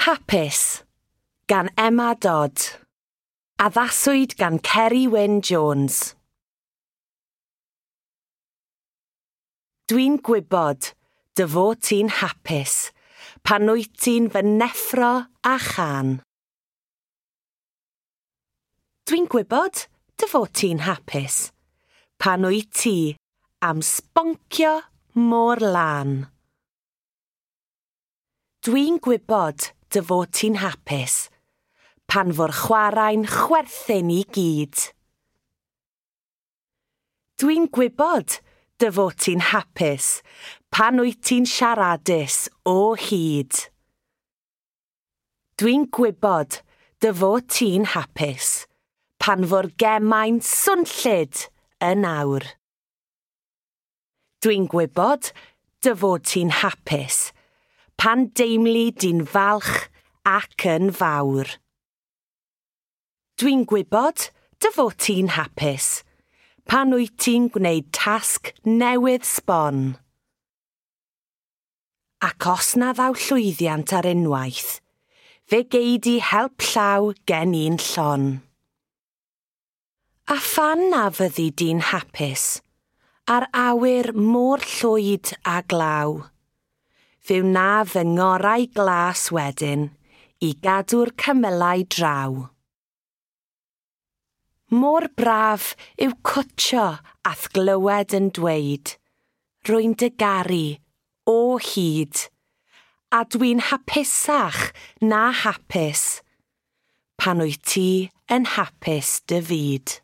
Hapus gan Emma Dodd. Addaswyd gan Ceri Wyn Jones. Dwi'n gwybod dy fod ti'n hapus pan wyt ti'n fy neffro â chân. Dwi'n gwybod dy fod ti'n hapus pan wyt ti am sboncio mor lân. Dwi'n gwybod dy fod ti'n hapus pan fo'r chwarae'n chwerthin i gyd. Dwi'n gwybod dy fod ti'n hapus pan wyt ti'n siaradus o hyd. Dwi'n gwybod dy fod ti'n hapus pan fo'r gemau'n swnllyd yn awr. Dwi'n gwybod dy fod ti'n hapus pan deimli di'n falch ac yn fawr. Dwi'n gwybod dy fod ti'n hapus pan wyt ti'n gwneud tasg newydd sbon. Ac os na ddaw llwyddiant ar unwaith, fe gei di help llaw gen i'n llon. A phan na fyddi di'n hapus, a'r awyr mor llwyd a glaw, fe wna fy ngorau glas wedyn i gadw'r cymylau draw. Mor braf yw cwtsio a'th glywed yn dweud, rwy'n dy garu o hyd, a dwi'n hapusach na hapus, pan wyt ti yn hapus dy fyd.